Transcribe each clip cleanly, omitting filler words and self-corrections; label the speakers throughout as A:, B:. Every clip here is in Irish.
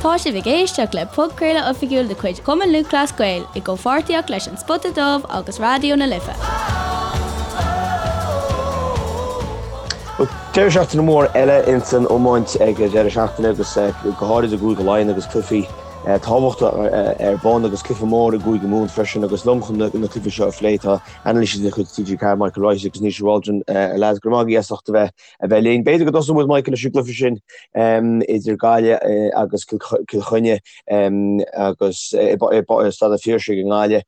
A: Tá sibh ag éisteacht le podchraoladh oifigiúil de chuid Chumann Lúthchleas Gael i gcomhpháirtíocht leis An Spota Dubh agus Raidió na Life.
B: Deireadh seachtaine mór eile ins an iomáint ag an deireadh seachtaine agus go háirid i gCúige Laighean agus cluichí tábhachtacha ar bun agus cluiche mór i gCúige Mumhan freisin agus liom chun na cluichí seo a phlé tá anailísí de chuid TG4 Michael Wright agus Naoise Waldron. A lads, go raibh maith agaibh as ucht a bheith a bheith linn. B'fhéidir go dtosóidh muid, Michael, leis an gcluiche sin idir Gaillimh agus Cill Chainnigh agus i Staid an Phiarsaigh i nGaillimh.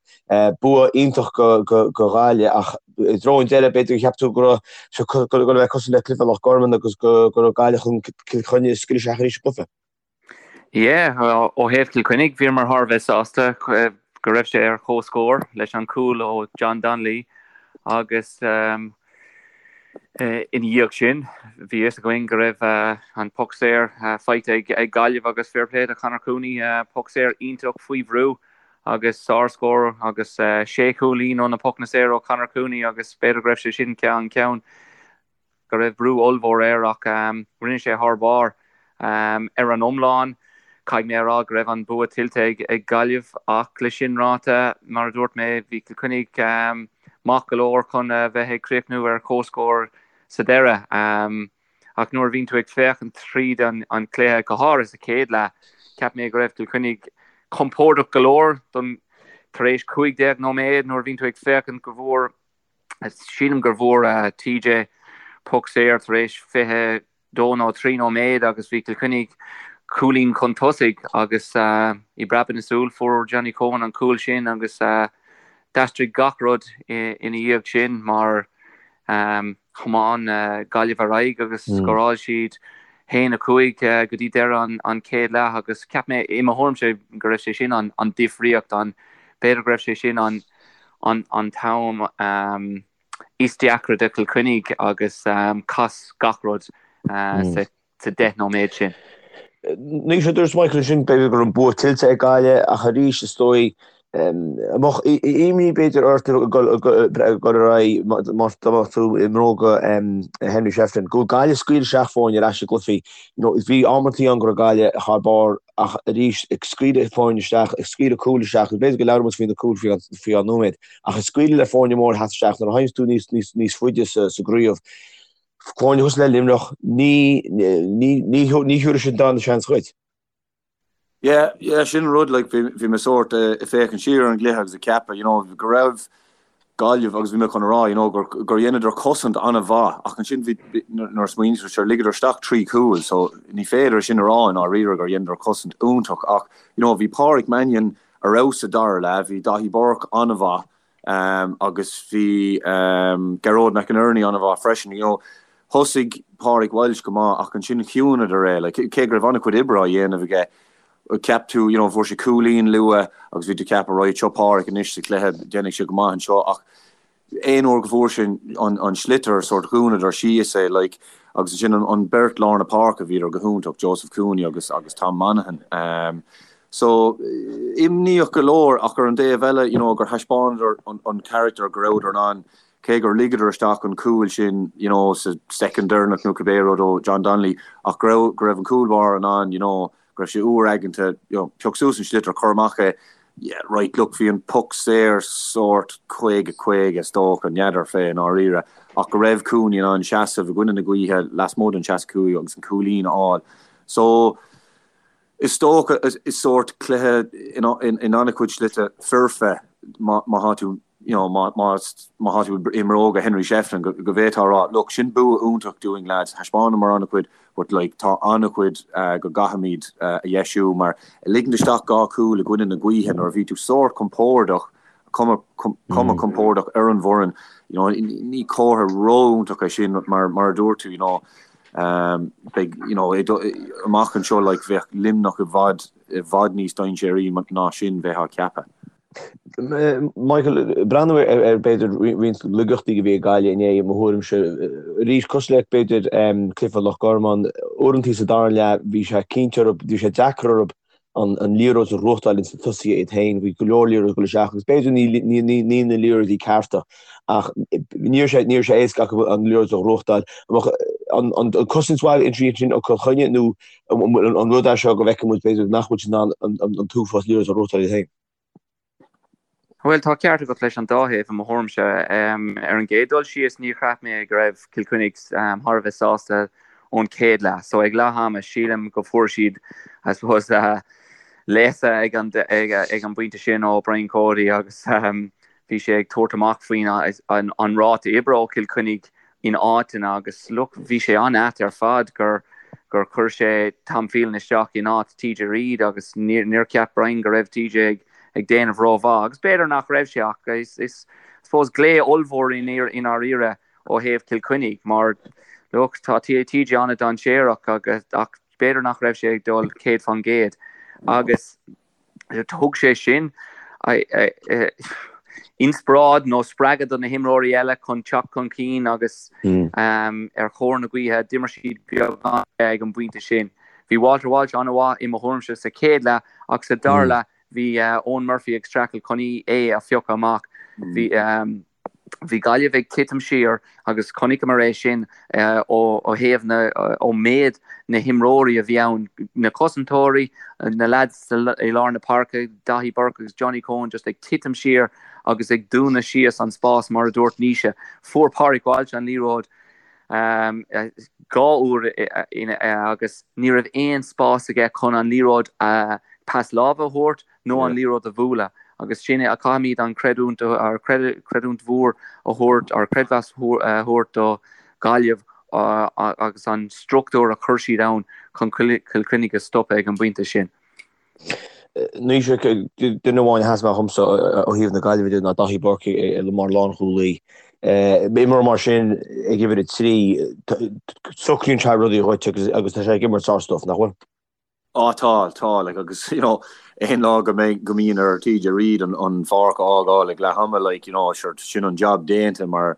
B: Bua iontach do Ghaillimh ach i dtreo an deireadh b'fhéidir gur cheap tú go raibh sé ag dul a bheith cosúil le cluiche Loch Garman agus go raibh Gaillimh chun Cill Chainnigh a scaoileadh isteach arís sa gcluiche.
C: Yeah, ó thaobh Chill Chainnigh, bhíomar thar a bheith sásta go raibh sé ar comhscór leis an cúl ó John Donnelly agus ina dhiaidh sin bhí fhios againn go raibh an poc saor faighte ag Gaillimh agus fair play do Conor Cooney, poc saor iontach faoi bhrú agus sárscór agus sé chúilín ó na pocanna saora ó Conor Cooney agus b'fhéidir go raibh sé sin an ceann go raibh brú ollmhór air ach rinne sé thar barr. Ar an iomlán, caithfidh mé a rá go raibh an bua tuillte ag Gaillimh ach le sin ráite, mar a dúirt mé, bhí Cill Chainnigh maith go leor chun a bheith ag críochnú ar comhscór sa deireadh. Ach nuair a bhíonn tú ag féachaint tríd an chluiche, go háirithe sa chéad leath, cheap mé go raibh Cill Chainnigh compordach go leor don tar éis 15 nóiméad nuair a bhíonn tú ag féachaint go bhfuair Sílim gur bhfuair TJ poc saor tar éis 22 nó 3 nóiméad agus bhí Cill Chainnigh cúilín chun tosaigh agus i bpreabadh na súl fuair Johnny Coen an cúl sin agus d'aistrigh gach rud ina dhiaidh sin mar thiomáin Gaillimh ar aghaidh agus scóráil siad 1, 5 go dtí deireadh an chéad leath agus cheap mé i mo thuairimse go raibh sé sin an difríocht an b'fhéidir go raibh sé sin an an t-am is deacra do Chill Chainnigh agus chas gach rud sa 10 nóiméad sin.
B: Naoise, dúirt Michael ansin b'fhéidir go raibh an bua tuillte ag Gaillimh ach arís is dóigh an mbeadh imní b'fhéidir ort ag dul ar aghaidh má tá tú i mbróga Henry Shefflin go bhfuil Gaillimh ag scaoileadh isteach foirne ar ais i gcluichí. Bhí amantaí ann go raibh Gaillimh thar barr ach arís ag scaoileadh foirne isteach, ag scaoileadh cúil isteach, agus b'fhéidir go labhróidh muid faoi na cúil faoi dhá nóiméad, ach ag scaoileadh le foirne móra theacht isteach nuair a théanns tú níos, níos, níos faide sa, sa gcraobh, foirne cosúil le Luimneach, ní, ní, ní, ní thiúrfaidh siad an darna seans dhuit.
D: Yeah, yeah, sin an rud, like, bhí, bhí mé sórt ag féachaint siar ar an gcluiche agus ag ceapadh, you know, go raibh, Gaillimh agus bhí mé chun a rá you know gur gur dheineadar cosaint an-mhaith ach ansin bhí nuair a smaoiníonn tú sure ligeadar isteach 3 chúl so ní féidir sin a rá i ndáiríre gur dheineadar cosaint iontach ach you know bhí Páraic Mannion ar fheabhas sa dara leath, bhí Daithí Burke an-mhaith um agus bhí um Gearóid McInerney an-mhaith freisin you know thosaigh Pádraig Walsh go maith ach ansin chiúnadar é like cé go raibh an-chuid oibre á dhéanamh aige Cheap tú, you know, fuair sé cúilín luath agus bhí tú ag ceapadh, right, seo Páraic anois sa chluiche, déanfaidh sé go maith anseo ach aon uair go bhfuair sé an, an sliotar, sórt dhúnadar síos é, like, agus ansin an, an beirt lár na páirce, bhíodar go hiontach, Joseph Cooney agus, agus Tom Monaghan. Um, so, imníoch go leor ach ar an dtaobh eile, you know, gur thaispeánadar an, an character go rabhadar in ann, cé gur ligeadar isteach an cúl sin, you know, sa soicind deireanach nó cibé rud ó John Donnelly ach go raibh, go raibh an cúl báire in ann, you know, go raibh sé úr aigeanta, you know, pioc suas an sliotar, cuir amach é, yeah, right, look, bhí an poc saor sórt 50, 50 is dócha, n'fheadar fé i ndáiríre, ach go raibh Cooney in ann seasamh i gcoinne na gaoithe lasmuigh den 65 agus an cúilín a fháil. So, is dócha, is sórt cluiche in an-chuid slite foirfe má tá tú you know, má tá tú i mbróga Henry Shefflin, go bhféadfá a rá, look, sin bua iontach dúinn lads, thaispeánamar an-chuid but like tá an-chuid go gcaithfimid a dheisiú mar ligint isteach dhá chúl i gcoinne na gaoithe nuair a bhí tú sórt compordach, cuma cuma compordach ar an bhfoireann, you know, ní comhartha ró-iontach é sin mar mar a dúirt tú, you know, beidh, you know, amach anseo like bheadh Luimneach i bhfad i bhfad níos dainséaraí ná sin bheifeá ag ceapadh.
B: Michael, breathnú ar b'fhéidir roinnt laigeachtaí a bhí ag Gaillimh inné, i mo thuairimse. Arís, cosúil le b'fhéidir cluiche Loch Garman, uaireantaí sa dara leath bhí sé cinnte orthu, bhí sé deacair orthu. an liathróid a ghnóthachtáil ins na tosaithe iad féin. Bhí go leor liathróid ag dul isteach agus b'fhéidir ní na liathróidí cearta ach ní raibh sé ní raibh sé éasca acu an liathróid a ghnóthachtáil. An an cosaint mhaith ansin ó Chill Chainnigh nó an rud é seo go bhfeiceann muid b'fhéidir nach bhfuil siad in ann an t-uafás liathróid a ghnóthachtáil iad féin?
C: Bhuel, tá ceart agat leis an dá thaobh, i mo thuairimse. Ar an gcéad dul síos, níor cheap mé go raibh Cill Chainnigh thar a bheith sásta ón chéad leath. So ag leath ama, sílim go fuair siad, I suppose, léasadh ag an ag an bpointe sin ó Brian Cody agus bhí sé ag tabhairt amach faoin an ráta oibre ó Chill Chainnigh in áiteanna agus look bhí sé an-ait ar fad gur gur chuir sé Tom Phelan isteach in áit TJ Reid agus níor cheap Brian go raibh TJ ag ag déanamh rómhaith agus b'fhéidir nach raibh sé ach is is I suppose glao ollmhór i ndáiríre ó thaobh Chill Chainnigh mar look tá TJ an-dainséarach agus ach b'fhéidir nach raibh sé ag dul 100% agus Thug sé sin inspioráid nó spreagadh do na himreoirí eile chun teacht chun cinn agus ar thóir na gaoithe d'imir siad beagán ag an bpointe sin. Bhí Walter Walsh an-mhaith i mo thuairimse sa chéad leath ach sa dara leath bhí Eoin Murphy ag streachailt chun é a phiocadh amach. Bhí. Bhí Gaillimh ag titim siar agus chonaiceamar é sin ó thaobh na, ó méid na himreoirí a bhí ann, na cosantóirí, na leaids i lár na páirce, Daithí Burke agus Johnny Coen just ag titim siar agus ag dúnadh síos an spás mar a dúirt Naoise. Fuair Pádraig Walsh an liathróid 2 uair agus ní raibh aon spás aige chun an liathróid pas láimhe a thabhairt nó an liathróid a bhualadh agus sin é, caithfimid an creidiúint, creidiúint mhór a thabhairt, or creidmheas a thabhairt do Ghaillimh agus an struchtúr a chuir siad ann chun Cill Chainnigh a stopadh ag an bpointe sin.
B: Naoise, duine amháin a sheas amach dhomsa ó thaobh na Gaillimhe de ná Daithí Burke mar lánchúlaí. Imreoir mar sin ag uimhir 3, socraíonn sé rudaí dhuit agus tá sé ag imirt sár-stuif, nach bhfuil?
D: Á tá, tá, like agus you know aon lá go mbeidh, go mbíonn ar TJ Reid an an pháirc a fhágáil ag leath ama like you know sure sin an job déanta mar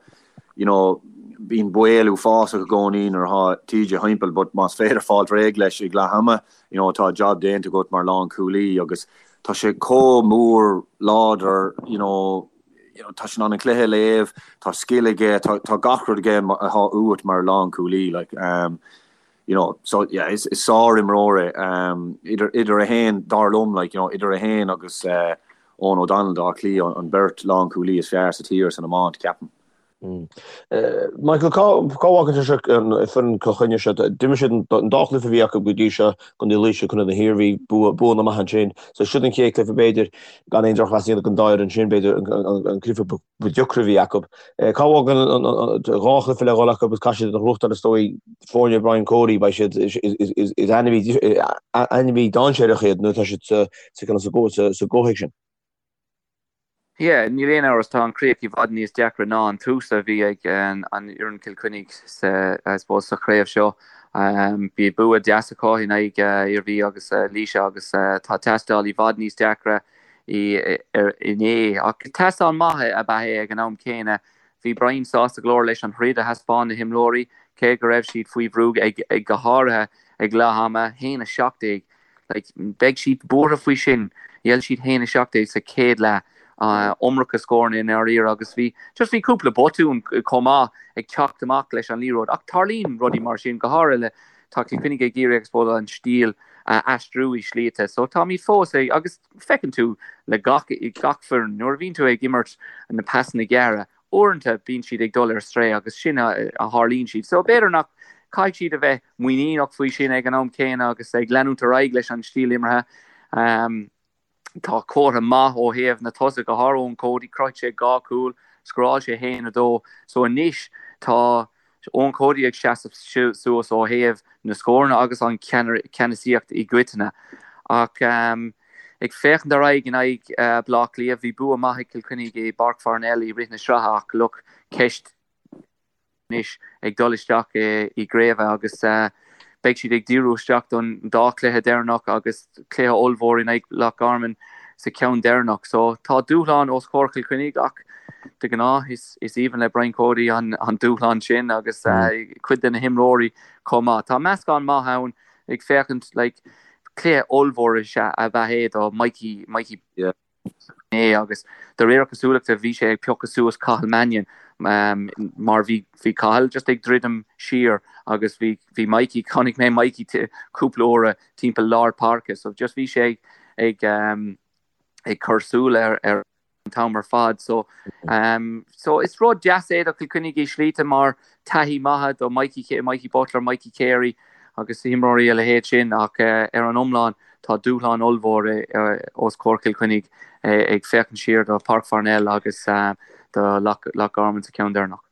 D: you know bíonn baol uafásach i gcónaí nuair atá TJ thimpeall but más féidir fáilt réidh leis ag leath ama you know tá job déanta agat mar lánchúlaí agus tá sé chomh mór láidir you know you know tá sé in ann an cluiche a léamh, tá scil aige, tá tá gach rud aige atá uait mar lánchúlaí like um you know, so yeah, is, is sár-imreoir é, um, idir, idir é féin, dar liom, like, you know, idir é féin agus uh, Eoghan O'Donnell d'Áth Cliath, an, an beirt lánchúlaí is fearr sa tír san iomáint, ceapaim.
B: Mm. Uh, Michael, cá, cá bhfágann sé seo an foireann Chill Chainnigh seo? D'imir siad an, an dá chluiche a bhí acu go dtí seo, Contae Laoise, Contae na hIarmhí, bua, buanna maithe ansin. So siod an chéad chluiche b'fhéidir, gan aon drochmheas a dhéanamh don dá fhoireann sin, b'fhéidir an, an, an cluiche ba deacra a bhí acu. Cá bhfágann an 2 chluiche le dhul acu agus caithfidh siad a ghnóthachtáil is dóigh foirne Brian Cody beidh siad is ainmhí dainséarach iad nuair atá siad sa sa gcomhthéacs sin.
C: Yeah, níl aon amhras, tá an chríoch i bhfad níos deacra ná an tús a bhí ag an fhoireann Cill Chainnigh sa, I suppose, sa chraobh seo. Bhí bua deas acu in aghaidh Iarmhí agus Laoise agus tá tástáil i bhfad níos deacra inné. Ach tástáil maith ab ea é ag an am céanna. Bhí Brian sásta go leor leis an throid a thaispeáin na himreoirí, cé go raibh siad faoi bhrú ag go háirithe ag leath ama, 1-17. Like, beidh siad buartha faoi sin. Ghéill siad 1-17 sa chéad leath. Iomarca scóranna i ndáiríre agus bhí just bhí cúpla botún chomh maith ag teacht amach leis an liathróid. Ach tarlaíonn rudaí mar sin, go háirithe le Tá Cill Chainnigh ag iarraidh I suppose an stíl a aistriú i slite so táimid fós ag agus feiceann tú le gach gach foireann nuair a bhíonn tú ag imirt na pasanna gearra uaireanta bíonn siad ag dul ar strae agus sin a a tharlaíonn siad so b'fhéidir nach caithfidh siad a bheith muiníneach faoi sin ag an am céanna agus ag leanúint ar aghaidh leis an stíl imeartha. Um, Tá comhartha maith ó thaobh na tosaithe, go háirithe Eoin Cody, chruthaigh sé 2 chúl, scóráil sé 1-2. So anois tá Eoin Cody ag seasamh suas ó thaobh na scóranna agus an ceannasaíocht i gcoitinne. Ach ag féachaint ar aghaidh in aghaidh Baile Átha Cliath, bhí bua maith ag Cill Chainnigh i bPáirc Pharnell i rith na sraithe ach look, ceist anois ag dul isteach i gcraobh agus beidh siad ag díriú isteach don dá chluiche deireanach agus cluiche ollmhór in aghaidh Loch Garman sa cheann deireanach. So tá dúshlán os comhair Chill Chainnigh ach de ghnáth is aoibhinn le Brian Cody an dúshlán sin agus cuid de na himreoirí chomh maith. Tá meascán maith ann ag féachaint like. Cluiche ollmhór is ea ab ea é do Mikey, Mikey é agus de réir cosúlachta bhí sé ag piocadh suas Cathal Mannion mar bhí bhí Cathal just ag druidim siar agus bhí bhí Mikey, chonaic mé Mikey cúpla uaire timpeall lár páirce so just bhí sé ag ag ag cur súil ar ar an t-am ar fad. So, so is rud deas é do Chill Chainnigh i slíte mar taithí maithe do Mikey, Mikey Butler, Mikey Carey agus imreoirí a leithéid sin ach ar an iomlán tá dúshlán ollmhór os comhair Chill Chainnigh ag féachaint siar do Páirc Pharnell agus do Loch Garman sa cheann deireanach.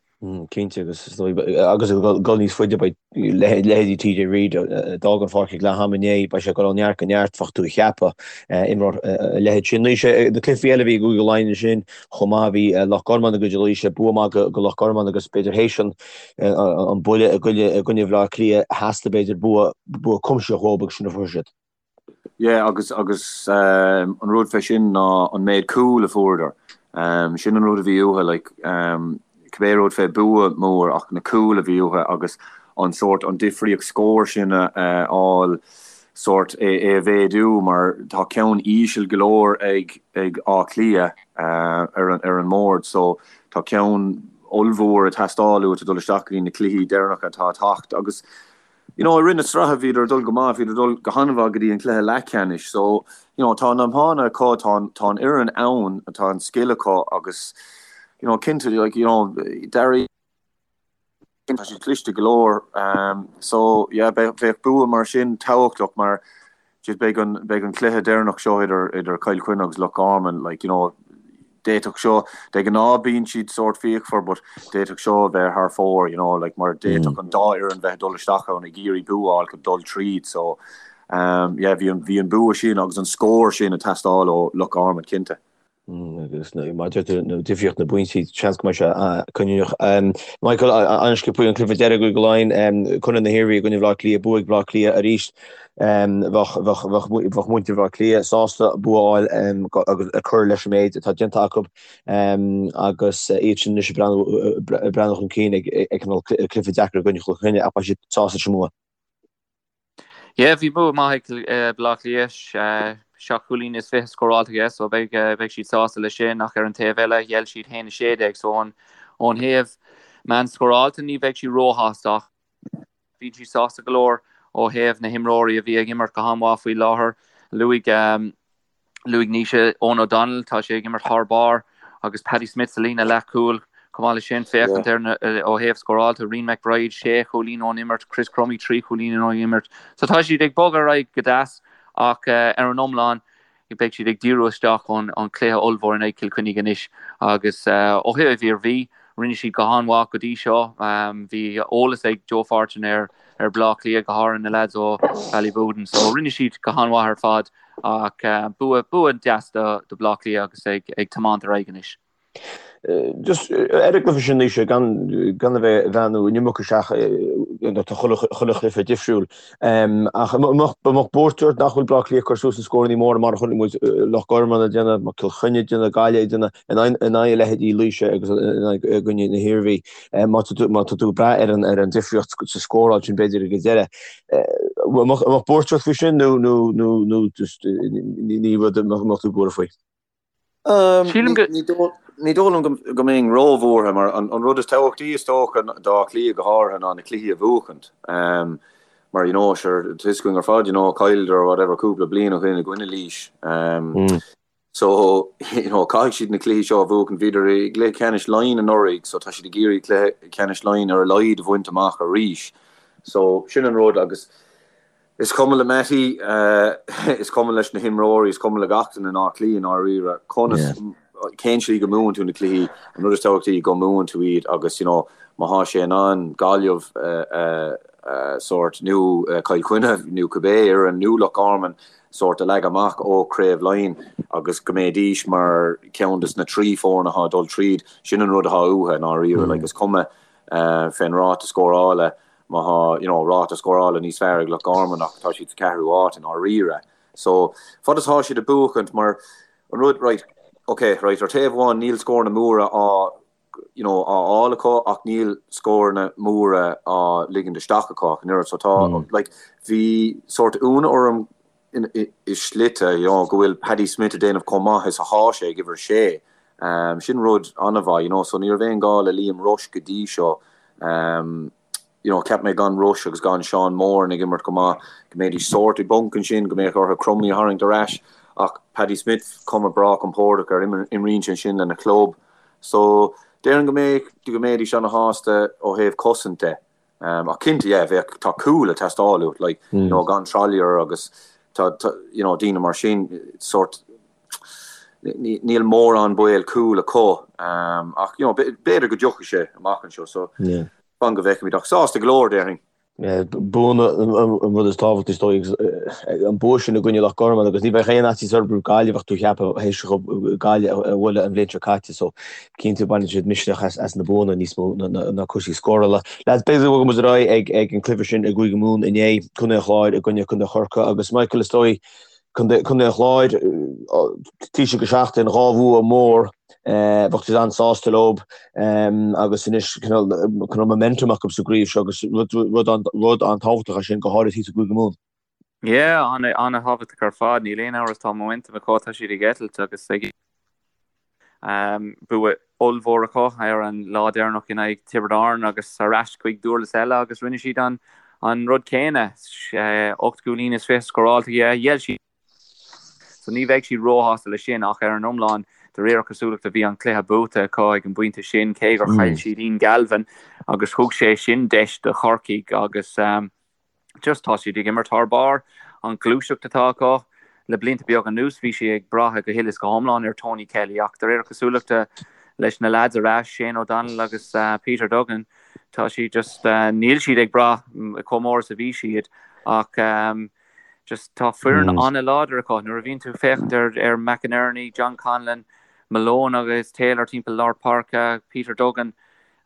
B: Cinnte, agus is dóigh, agus ag dul níos faide, beidh leithéidí TJ Reid, a d'fhág an pháirc ag leath ama inné, beidh sé ag dul ó neart go neart, bheadh tú a cheapadh, imreoir a leithéid sin. Naoise, na cluichí eile a bhí i gCúige Laighean ansin chomh maith, bhí Loch Garman i gcoinne Laoise, bua maith go Loch Garman agus b'fhéidir théis an an buille i gcoinne Bhaile Átha Cliath, theastaigh b'fhéidir bua bua cuimsitheach uathu agus sin a fuair siad.
D: Yeah agus agus an rud fé sin ná an méid cúl a fuaireadar. Sin an rud a bhí uathu like cibé rud fé bua mór ach na cúil a bhí uathu agus an sórt an difríocht scóir sin a fháil sórt é é a mhéadú mar tá ceann íseal go leor ag ag Áth Cliath ar an ar an mbord so tá ceann ollmhór ag teastáil uait ag dul isteach go dtí na cluichí deireanacha atá ag teacht agus You know, i rith na sraithe bhíodar ag dul go maith, bhíodar ag dul go han-mhaith go dtí an cluiche leathcheannais. So, you know, tá an iomána acu, tá an, tá an fhoireann ann, tá an scil acu agus, you know, cinnte, like, you know, Darragh, tá siad cliste go leor. Um, so, yeah, bheadh, bheadh bua mar sin tábhachtach mar just beidh an, beidh an cluiche deireanach seo idir, idir Cill Chainnigh agus Loch Garman, like, you know, D'fhéadfadh seo, de ghnáth bíonn siad sórt fíochmhar but d'fhéadfadh seo a bheith thar fóir, you know, like mar d'fhéadfadh an dá fhoireann bheith ag dul isteach ann ag iarraidh bua a fháil chun dul tríd so um yeah bhí an bhí an bua sin agus an scór sin ag teastáil ó Loch Garman cinnte.
B: Agus maidir le difríocht na bpointí, seans go mbeidh sé cinniúnach. Michael, an-sciobtha an cluiche deiridh i gCúige Laighean, Contae na hIarmhí i gcoinne Bhaile Átha Cliath, bua ag Baile Átha Cliath arís. Bheadh muintir Bhaile Átha Cliath sásta bua a fháil agus cur leis an méid atá déanta acu agus iad sin anois ag breathnú chun cinn ag cineál cluiche deacair i gcoinne Chill Chainnigh ach beidh siad sásta leis an mbua.
C: Yeah, bhí bua maith ag Baile Átha Cliath, 7 chúilín is 20 scóráilte aige so beidh beidh siad sásta leis sin ach ar an taobh eile ghéill siad 1-16 so ón thaobh meán scóráilte ní bheidh siad róshásta ach Bhí siad sásta go leor ó thaobh na himreoirí a bhí ag imirt go han-mhaith faoi láthair. Luaigh Luaigh Naoise Eoghan O'Donnell, tá sé ag imirt thar barr agus Paddy Smith sa líne leathchúil. Chomh maith leis sin, féachaint ar na ó thaobh scóráilte, Rian McBride, sé chúilín ón imirt, Chris Crummey, 3 chúilín ón imirt. So tá siad ag bogadh ar aghaidh go deas ach ar an iomlán, Beidh siad ag díriú isteach ón chluiche ollmhór in aghaidh Chill Chainnigh anois agus ó thaobh Iarmhí, rinne siad go han-mhaith go dtí seo. Bhí eolas ag Joe Fortune ar ar Bhaile Átha Cliath, go háirithe na leaids ó Ballyboden, so rinne siad go han-mhaith ar fad ach bua bua deas do Bhaile Átha Cliath agus ag ag tiomáint ar aghaidh anois.
B: Just ar an gcluiche sin Naoise, gan gan a bheith ag breathnú an iomarca isteach tá chuile chuile chluiche difriúil. Ach an mbeadh an mbeadh buairt ort nach bhfuil Baile Átha Cliath ag cur suas na scóranna móra mar a chonaic muid Loch Garman ag déanamh, Cill Chainnigh ag déanamh, Gaillimh ag déanamh in aghaidh in aghaidh a leithéidí Laoise agus in aghaidh i gcoinne na hIarmhí. Má tá tú má tá tú ag brath ar an ar an difríocht sa scóráil sin b'fhéidir ag an deireadh. An mbeadh an mbeadh buairt ort faoi sin nó nó nó nó just ní rud a mbeadh tú buartha faoi?
C: Sílim go.
D: Ní dóigh liom go mbeinn róbhuartha mar an rud is tábhachtaí is dócha d'Áth Cliath go háirithe ná na cluichí a bhuachaint. Mar you know sure tá fhios againn ar fad you know chailleadar whatever cúpla bliain ó shin i gcoinne Laois. So you know caithfidh siad na cluichí seo a bhuachaint. Bhíodar i gcluiche ceannais Laighean anuraidh so tá siad ag iarraidh cluiche ceannais Laighean ar a laghad a bhaint amach arís. So sin an rud agus Is cuma le Mattie, is cuma leis na himreoirí, is cuma le gach duine in Áth Cliath i ndáiríre conas, cén tslí go mbuann tú na cluichí, an rud is tábhachtaí go mbuann tú iad agus you know má thá sé in ann Gaillimh a sórt nó Cill Chainnigh nó cibé fhoireann nó Loch Garman sórt a leagadh amach ó Chraobh Laighean agus go mbeidís mar cheann des na 3 foireann athá ag dul tríd, sin an rud athá uathu i ndáiríre like is cuma fén ráta scórála Má thá, you know, ráta scórála níos fearr ag Loch Garman ach tá siad sa ceathrú áit i ndáiríre. So, fad is thá siad ag buachaint, mar an rud, right, ok, right, ar taobh amháin níl scóranna móra á, you know, á fháil acu ach níl scóranna móra á ligint isteach acu ach an oiread. So tá, like, bhí sórt ionadh orm. i slite, you know, go bhfuil Paddy Smith ag déanamh chomh maith is athá sé ag uimhir a sé. Sin rud an-mhaith, you know, so ní raibh aon gá le Liam Rushe go dtí seo. You know, cheap mé gan Rushe agus gan Seán Moran ag imirt go maith, go mbeidís sórt i bponc ansin, go mbeadh orthu Crumley a tharraingt ar ais. Ach Paddy Smith, cuma breá compordach air, imríonn sé ansin lena chlub. So, déarfainn go mbeadh, go mbeidís ana-shásta ó thaobh cosaint de. Ach cinnte, yeah, bheadh, tá cúl ag teastáil uait, like, you know, gan Trollier agus tá, tá, you know, daoine mar sin, sórt, níl mórán baol cúl acu. Ach, you know, b'fhéidir go dtiocfaidh sé amach anseo, so fan go bhfeicfimid. Ach sásta go leor, déarfainn.
B: Buanna an rud is tábhachtaí is dóigh agus an bua sin i gcoinne Loch Garman agus ní bheadh aon fhaitíos orthu roimh Gaillimh ach tú a cheapadh théis Gaillimh a bhualadh an bhliain seo caite so cinnte baineann siad misneach as na buanna níos mó ná cúrsaí scórála. Lads, b'fhéidir go bhfágfaidh muid ar aghaidh ag an cluiche sin i gCúige Mumhan inné, Contae an Chláir i gcoinne Contae Chorcaí agus Michael is dóigh Contae an Chláir, taoiseach go seachtain, 2 bhua mór, bheadh siad an-sásta leo agus anois cineál momentum acu sa gcraobh seo agus rud an-tábhachtach é sin, go háirithe thíos i gCúige Mumhan.
C: Yeah, an-thábhachtach ar fad, níl aon amhras tá momentum acu, tá siad ag eitilt agus ag. Bua ollmhór acu ar an lá deireanach in aghaidh Tiobraid Árann agus ar ais chuig Dúrlas eile agus rinne siad an rud céanna. 8 gcúilín is 20 scóráilte ghéill siad so ní bheidh siad róshásta leis sin ach ar an iomlán de réir cosúlachta bhí an cluiche buaite acu ag an bpointe sin cé gur chaill siad Ian Galvin agus thug sé sin deis do Chorcaigh agus Just tá siad ag imirt thar barr. An ghluaiseacht atá acu le blianta beaga anuas, bhí sé ag brath go huile is go hiomlán ar Tony Kelly ach de réir cosúlachta leis na leaids ar ais, Shane O'Donnell agus Peter Duggan, tá siad just, níl siad ag brath chomh mór is a bhí siad ach just tá foireann an-láidir acu. Nuair a bhíonn tú ag féachaint ar ar McInerney, John Conlon, Malone agus Taylor timpeall lár páirce, Peter Duggan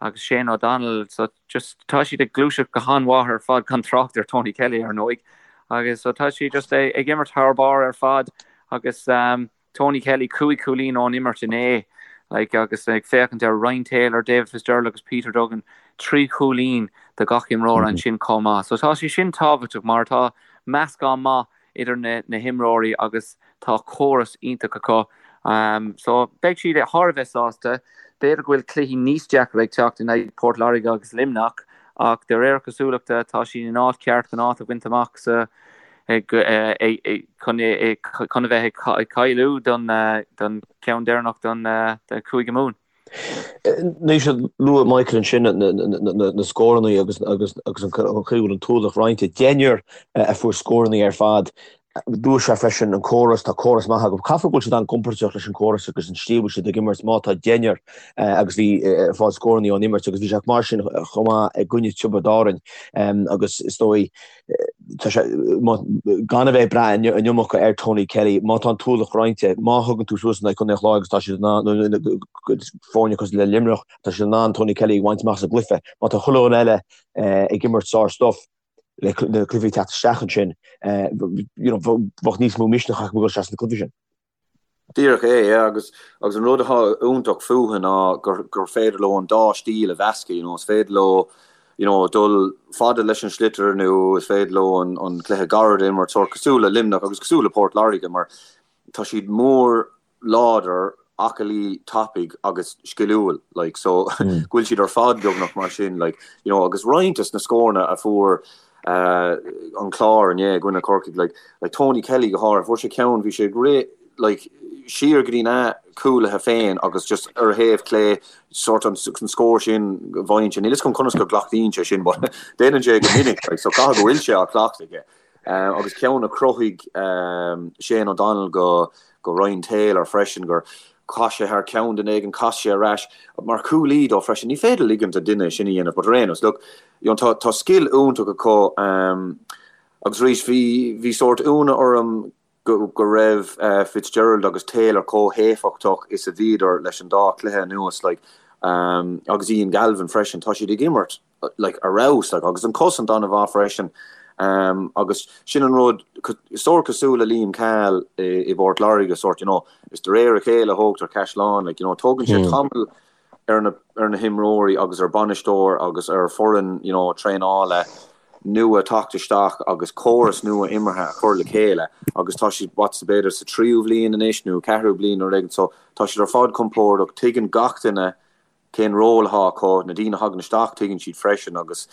C: agus Shane O'Donnell, so just tá siad ag gluaiseacht go han-mhaith ar fad gan trácht ar Tony Kelly ar ndóigh agus so tá siad just ag imirt thar barr ar fad agus um, Tony Kelly 5 chúilín ón imirt inné like, agus ag féachaint ar Ryan Taylor, David Fitzgerald agus Peter Duggan 3 chúilín do gach imreoir mm -hmm. ansin chomh maith. So tá sé sin tábhachtach mar tá meascán maith idir na himreoirí agus tá córas iontach acu. So beidh siad thar a bheith sásta. B'fhéidir go bhfuil cluichí níos deacra ag teacht in aghaidh Port Láirge agus Luimneach ach de réir cosúlachta tá siad in áit cheart chun áit a bhaint amach sa chun a bheith ag cáiliú don cheann deireanach don Chúige Mumhan.
B: Anois luaigh Michael ansin na scóranna agus agus agus an chaoi a bhfuil an t-ualach roinnte. Deichniúr a fuair scóranna ar fad. Dúirt sé freisin an córas, tá córas maith acu. Caithfidh go bhfuil siad an-gcompordach leis an gcóras agus an slí a bhfuil siad ag imirt má tá deichniúr agus bhí ag fáil scóranna ón imirt agus bhí sé mar sin chomh maith i gcoinne Tiobraid Árann agus is dóigh Tá sé, gan a bheith ag brath an iomarca ar Tony Kelly, má tá an t-ualach roinnte, má thugann tú suas in aghaidh Chontae an Chláir agus tá siad in ann, foirne cosúil le Luimneach, tá siad in ann Tony Kelly a bhaint amach as an gcluiche. Má tá chuile dhuine eile ag imirt sár-stuff, le na cluichí ag teacht isteach ansin, you know, bheadh níos mó misneach acu ag dul isteach sna cluichí sin.
D: Díreach é, yeah, agus agus an rud atá iontach fúthu ná gur gur féidir leo an dá stíl a mheascadh, you know, is féidir leo, you know, dul fada leis an sliotar nó is féidir leo an an cluiche gairid a imirt, sórt cosúil le Luimneach agus cosúil le Port Láirge mar tá siad mór, láidir, aclaí, tapaidh agus sciliúil, like, so go bhfuil siad ar fad beagnach mar sin, like, you know, agus roinnt des na scóranna a fuair an Clár inné i gcoinne Corcaigh, like, like Tony Kelly go háirithe, fuair sé ceann, bhí sé ag rith, like, siar go dtí na cúlaithe féin agus just ar a thaobh clé, sort an scór sin go bhfaigheann sé, níl fhios agam conas go gcleachtaíonn sé sin, but déanann sé go minic, like, so caithfidh go bhfuil sé á chleachtadh aige. Agus ceann a chruthaigh Shane O'Donnell go go Ryan Taylor freisin, gur chaith sé thar ceann duine éigin, chas sé ar ais mar chúlaí dó freisin. Ní féidir ligint do duine sin a dhéanamh, but ar aon nós, look, you know, tá, tá scil iontach acu agus arís bhí, bhí sórt ionadh orm go, go raibh Fitzgerald agus Taylor chomh héifeachtach is a bhíodar leis an dá chluiche anuas, like, agus Ian Galvin freisin, tá siad ag imirt like, ar fheabhas, like, agus an cosaint an-mhaith freisin. Um, agus sin an rud, sórt cosúil le Liam Cahill i, i bPort Láirge, sórt, you know, is de réir a chéile a thógtar caisleán, like, you know, tógann sé hmm. tamall ar na, ar na himreoirí agus ar bainisteoir agus ar foireann, you know, traenála. nua teacht isteach agus córas nua imeartha a chur le chéile agus tá siad, what, b'fhéidir sa tríú bhliain anois nó ceathrú bliain nó rud éigin so tá siad ar fad compordach, tuigeann gach duine cén ról atá acu, na daoine a thagann isteach tuigeann siad freisin agus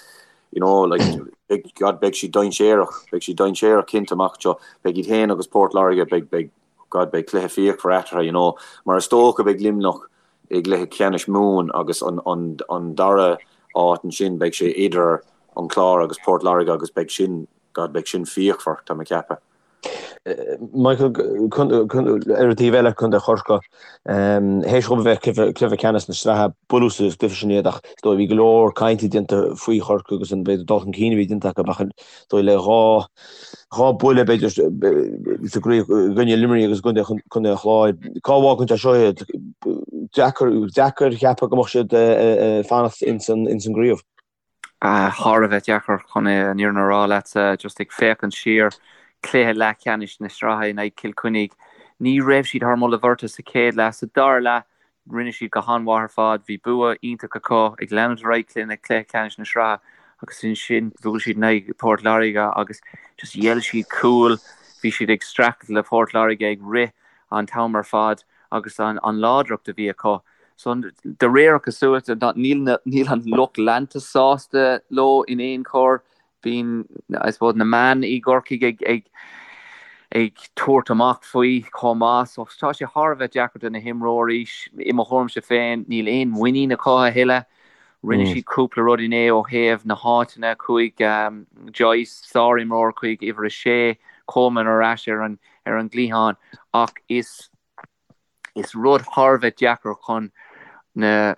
D: you know like beidh, God, beidh siad dainséarach, beidh siad dainséarach cinnte amach anseo, beidh iad féin agus Port Láirge, beidh, beidh, God, beidh cluiche fíochmhar eatarthu, you know, mar is dócha beidh Luimneach i gcluiche ceannais Mumhan agus an, an, an dara áit ansin beidh sé idir an Clár agus Port Láirge agus beidh sin, God, beidh sin fíochmhar, tá mé ag ceapadh.
B: Michael, ar an taobh eile, Contae Chorcaí, théis dhóibh a bheith cluiche ceannais na sraithe, buaileadh sa gcluiche sin iad ach is dóigh bhí go leor cainte déanta faoi Chorcaigh agus an b'fhéidir dul chun cinn a bhí déanta acu ach is dóigh le dhá dhá buille b'fhéidir sa gcraobh i gcoinne Luimnigh agus i gcoinne Contae an Chláir. Cá bhfágann sé seo iad? Deacair deacair a cheapadh go mbeadh siad ag fanacht ins an gcraobh.
C: Thar a bheith deacair chun an fhírinne a rá leatsa, just ag féachaint siar, cluiche leathcheannais na sraithe in aghaidh Cill Chainnigh, ní raibh siad thar moladh bheirte sa chéad leath. Sa dara leath, rinne siad go han-mhaith ar fad, bhí bua iontach acu ag leanúint ar aghaidh cluiche cluiche ceannais na sraithe agus ansin bhuail siad in aghaidh Port Láirge agus just ghéill siad cúl, bhí siad ag streachailt le Port Láirge ag rith an t-am ar fad agus an láidreacht a bhí acu. So, de réir cosúlachta, níl níl an lucht leanta sásta leo in aon chor. Bíonn, I suppose, na meáin i gCorcaigh ag ag ag tabhairt amach faoi chomh maith. So, tá sé thar a bheith deacair do na himreoirí. I mo thuairimse féin, níl aon mhuinín acu a thuilleadh. Rinne siad cúpla rud inné ó thaobh na háiteanna. Chuaigh Joyce, sár-imreoir, chuig uimhir a sé, Coleman ar ais ar an ar an gcliathán ach is Is rud thar a bheith deacair chun na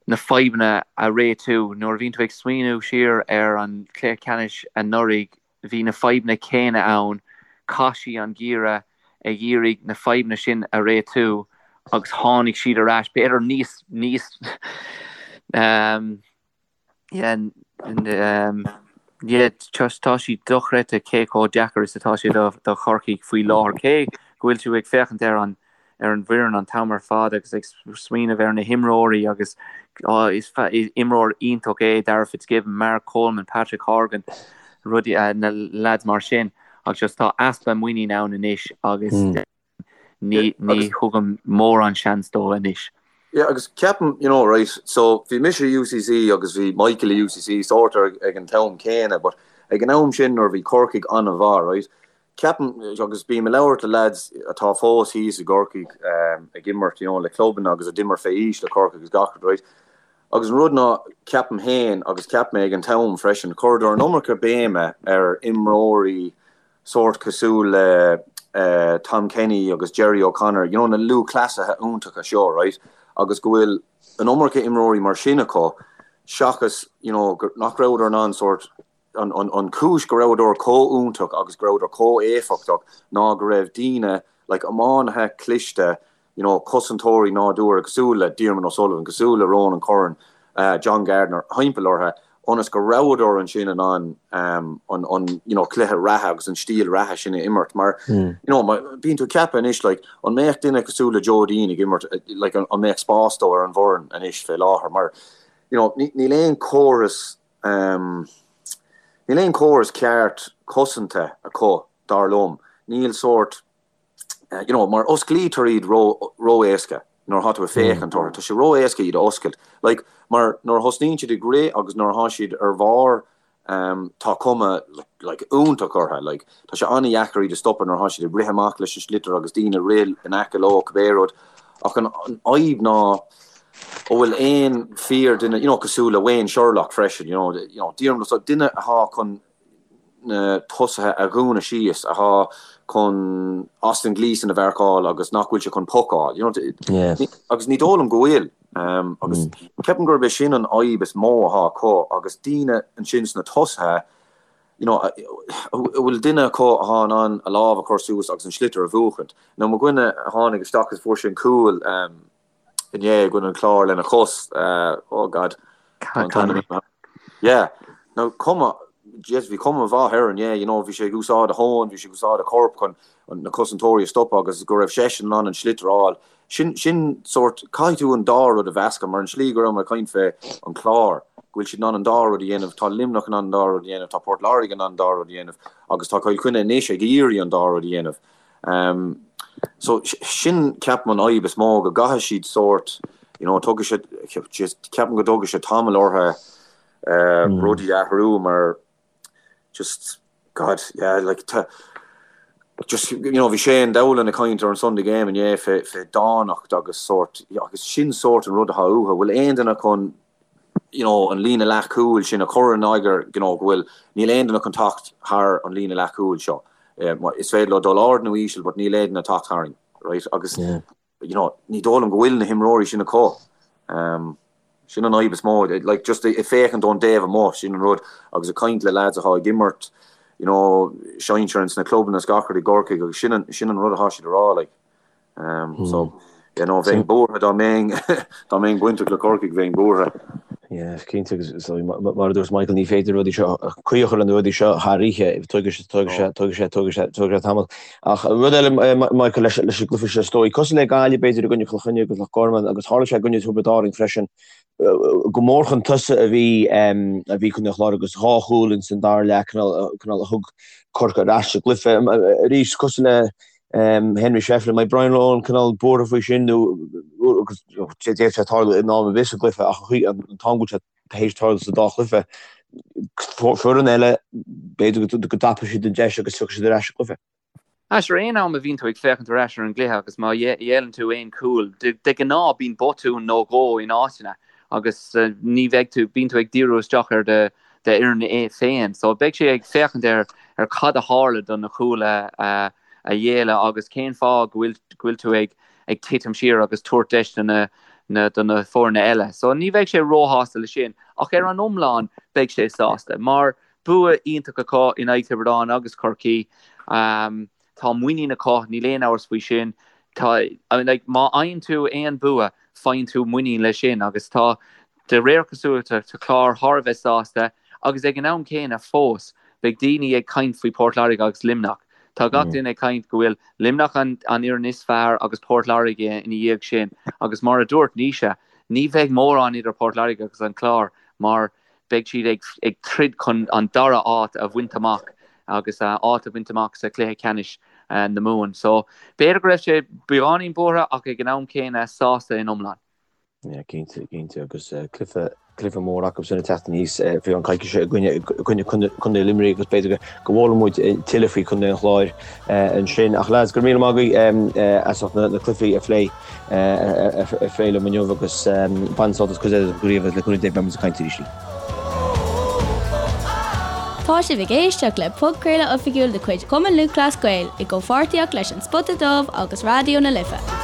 C: na fadhbanna a réitiú. Nuair a bhíonn tú ag smaoineamh siar ar an chluiche ceannais anuraidh, bhí na fadhbanna céanna ann. Chaith siad an geimhreadh ag iarraidh na fadhbanna sin a réitiú agus tháinig siad ar ais, b'fhéidir níos níos Yeah, yeah, tá sé dochreidte cé chomh deacair is atá sé do do Chorcaigh faoi láthair. Cé go bhfuil tú ag féachaint ar an ar an bhfoireann an t-am ar fad agus ag smaoineamh ar na himreoirí agus oh, is imreoir iontach é Darragh Fitzgibbon, Mark Coleman, Patrick Horgan, rudaí na lads mar sin ach just tá easpa muinín ann anois agus Ní thugaim mórán seans dó anois.
D: Yeah, agus ceapaim, you know, right, so bhí mise i UCC agus bhí Michael i UCC sórt ag an t-am céanna, but ag an am sin nuair a bhí Corcaigh an-mhaith, right, ceapaim, agus bím ag labhairt le lads atá fós thíos i gCorcaigh ag imirt, you know, le clubanna agus a d'imir fé aois le Corcaigh agus gach rud, right, agus an rud ná, ceapaim féin agus cheap mé ag an t-am freisin, chuireadar an iomarca béime ar imreoirí sórt cosúil le Tom Kenny agus Gerry O'Connor, you know na lúthchleasaithe iontacha seo, right, agus go bhfuil an iomarca imreoirí mar sin acu seachas, you know, nach rabhadar in ann sórt, an, an, an chúis go rabhadar chomh iontach agus go rabhadar chomh éifeachtach ná go raibh daoine, like iománaithe cliste, you know, cosantóirí nádúrtha cosúil le Diarmuid O'Sullivan, cosúil le Ronan Curran, John Gardiner, thimpeall orthu, ionas go rabhadar ansin in ann an, an, you know, cluiche reatha agus an stíl reatha sin a imirt. Mar, you know, bíonn tú ag ceapadh anois, like, an mbeadh duine cosúil le Joe Deane ag imirt, like, an mbeadh spás dó ar an bhfoireann anois fé láthair? Mar, you know, níl aon chóras, níl aon chóras ceart cosanta acu, dar liom. Níl sórt, you know, mar osclaítear iad ró, ró-éasca nuair atá tú ag féachaint orthu. Tá sé ró-éasca iad a oscailt. Like, mar nuair a thosnaíonn siad ag rith agus nuair atá siad ar bharr, um, tá cuma, like, iontach orthu. Like, tá sé an-dheacair iad a stopadh nuair atá siad ag rith amach leis an sliotar agus daoine ag rith in aice leo, cibé rud. Ach an, an fhadhb ná, an bhfuil aon fíor duine, you know, cosúil le Wayne Sherlock freisin, you know, you know, Diarmuid, duine atá chun, na tosaithe a dhúnadh síos, atá chun Austin Gleeson a mharcáil agus nach bhfuil sé chun poc a fháil. You know, agus ní dóigh liom go bhfuil. Agus ceapaim gurb é sin an fhadhb is mó atá acu agus daoine ansin sna tosaithe, you know, an bhfuil duine acu atá in ann a lámh a chur suas agus an sliotar a bhuachaint. Now mo dhuine a tháinig isteach agus fuair sé an cúl, inné i gcoinne an Chláir lena chos, oh God, tá an t-ainm imithe. Yeah, now cuma, yes, bhí cuma mhaith air inné, you know, bhí sé ag úsáid a thóin, bhí sé ag úsáid a chorp chun na cosantóirí a stopadh agus go raibh seisean in ann an sliotar a fháil. Sin, sin sórt, caithfidh tú an dá rud a mheascadh mar an slí go raibh mé ag caint fé an Clár. go bhfuil siad in ann an dá rud a dhéanamh, tá Luimneach in ann an dá rud a dhéanamh, tá Port Láirge in ann an dá rud a dhéanamh agus tá Cill Chainnigh anois ag iarraidh an dá rud a dhéanamh. Um, so sin ceapaim an fhadhb is mó go gcaithfidh siad sórt, you know, tógfaidh sé, ceapaim go dtógfaidh sé tamall orthu uh, rudaí a athrú mar just God, yeah, like tá just you know bhí Shane Dowling ag caint ar an Sunday Game inné fé fé dánacht agus sórt agus sin sórt an rud atá uathu. Bhfuil aon duine chun you know an líne leathchúil sin a chur in eagar you know go bhfuil níl aon duine chun teacht thar an líne leathchúil seo. Is féidir leo dul ard nó íseal but níl aon duine ag teacht tharainn, right? Agus yeah. you know, ní dóigh liom go bhfuil na himreoirí sin acu. Um, sin an fhadhb is mó, like, just ag féachaint ón dtaobh amuigh, sin an rud, agus ag caint le lads atá ag imirt, you know, sinsir ins na clubanna is gach rud i gCorcaigh, agus sin an, sin an rud atá siad a rá, like. Um, mm. So, you know, bheinn buartha dá mbeinn, dá mbeinn bainteach le Corcaigh, bheinn buartha.
B: Yeah, cinnte agus mar a dúirt Michael ní féidir rudaí seo caoi a chur le na rudaí seo thar oíche, tógfaidh sé tógfaidh sé tógfaidh sé tógfaidh sé tógfaidh sé tamall. Ach rud eile Michael leis leis an gcluiche seo is dóigh, cosúil le Gaillimh b'fhéidir i gcoinne Chill Chainnigh agus Loch Garman agus tharla sé i gcoinne Tiobraid Árann freisin, go mór chun tosaigh a bhí a bhí Contae an Chláir agus dhá chúl ins an dara leath cineál cineál a thug Corcaigh ar ais sa gcluiche. Arís cosúil le Henry Shefflin, an mbeidh Brian Lohan cineál buartha faoi sin nó agus d'fhéadfadh sé tarlú in am ar bith sa gcluiche ach an t-am go bhfuil sé tar éis tarlú sa dá chluiche, foireann eile, b'fhéidir go dtapóidh siad an deis agus tiocfaidh siad ar ais sa gcluiche.
C: Sure aon am a bhíonn tú ag féachaint ar ais ar an gcluiche agus má ghéilleann tú aon chúl, de ghnáth bíonn botún nó dhó in áiteanna agus ní bheidh tú, bíonn tú ag díriú isteach ar do d'fhoireann féin. So beidh sé ag féachaint ar ar cad a tharla do na cúil a a ghéilleadh agus cén fáth go bhfuil go bhfuil tú ag ag titim siar agus tabhairt deis do na na do na foirne eile. So ní bheidh sé róshásta le sin ach ar an iomlán beidh sé sásta mar bua iontach acu in aghaidh Tiobraid Árann agus Chorcaí. Um, Tá muinín acu, níl aon amhras faoi sin. Tá, I mean, like, má fhaigheann tú aon bua, faigheann tú muinín leis sin agus tá, de réir cosúlachta, tá Clár thar a bheith sásta agus ag an am céanna fós, beidh daoine ag caint faoi Port Láirge agus Luimneach. Tá gach duine ag caint go bhfuil Luimneach an an fhoireann is fearr agus Port Láirge ina dhiaidh sin agus mar a dúirt Naoise, ní bheidh mórán idir Port Láirge agus an Clár mar beidh siad ag ag troid chun an dara áit a bhaint amach agus áit a bhaint amach sa chluiche ceannais na Mumhan. So b'fhéidir go raibh sé beagáinín buartha ach ag an am céanna sásta in iomlán.
B: Yeah, cinnte, cinnte agus cluiche cluiche mór acu sin ag teacht aníos faoi cheann coicíse i gcoinne i gcoinne Contae Luimnigh agus b'fhéidir go bhfoghlaimeoidh muid tuilleadh faoi Chontae an Chláir ansin. Ach lads, go raibh míle maith agaibh as ucht na cluichí a phlé. a phlé liom inniu agus bain sult as cuid eile den chraobh agus le cúnamh Dé beidh muid ag caint arís.
A: Tá sibh ag éisteacht le podchraoladh oifigiúil de chuid Chumann Lúthchleas Gael i gcomhpháirtíocht leis An Spota Dubh agus Raidió na Life.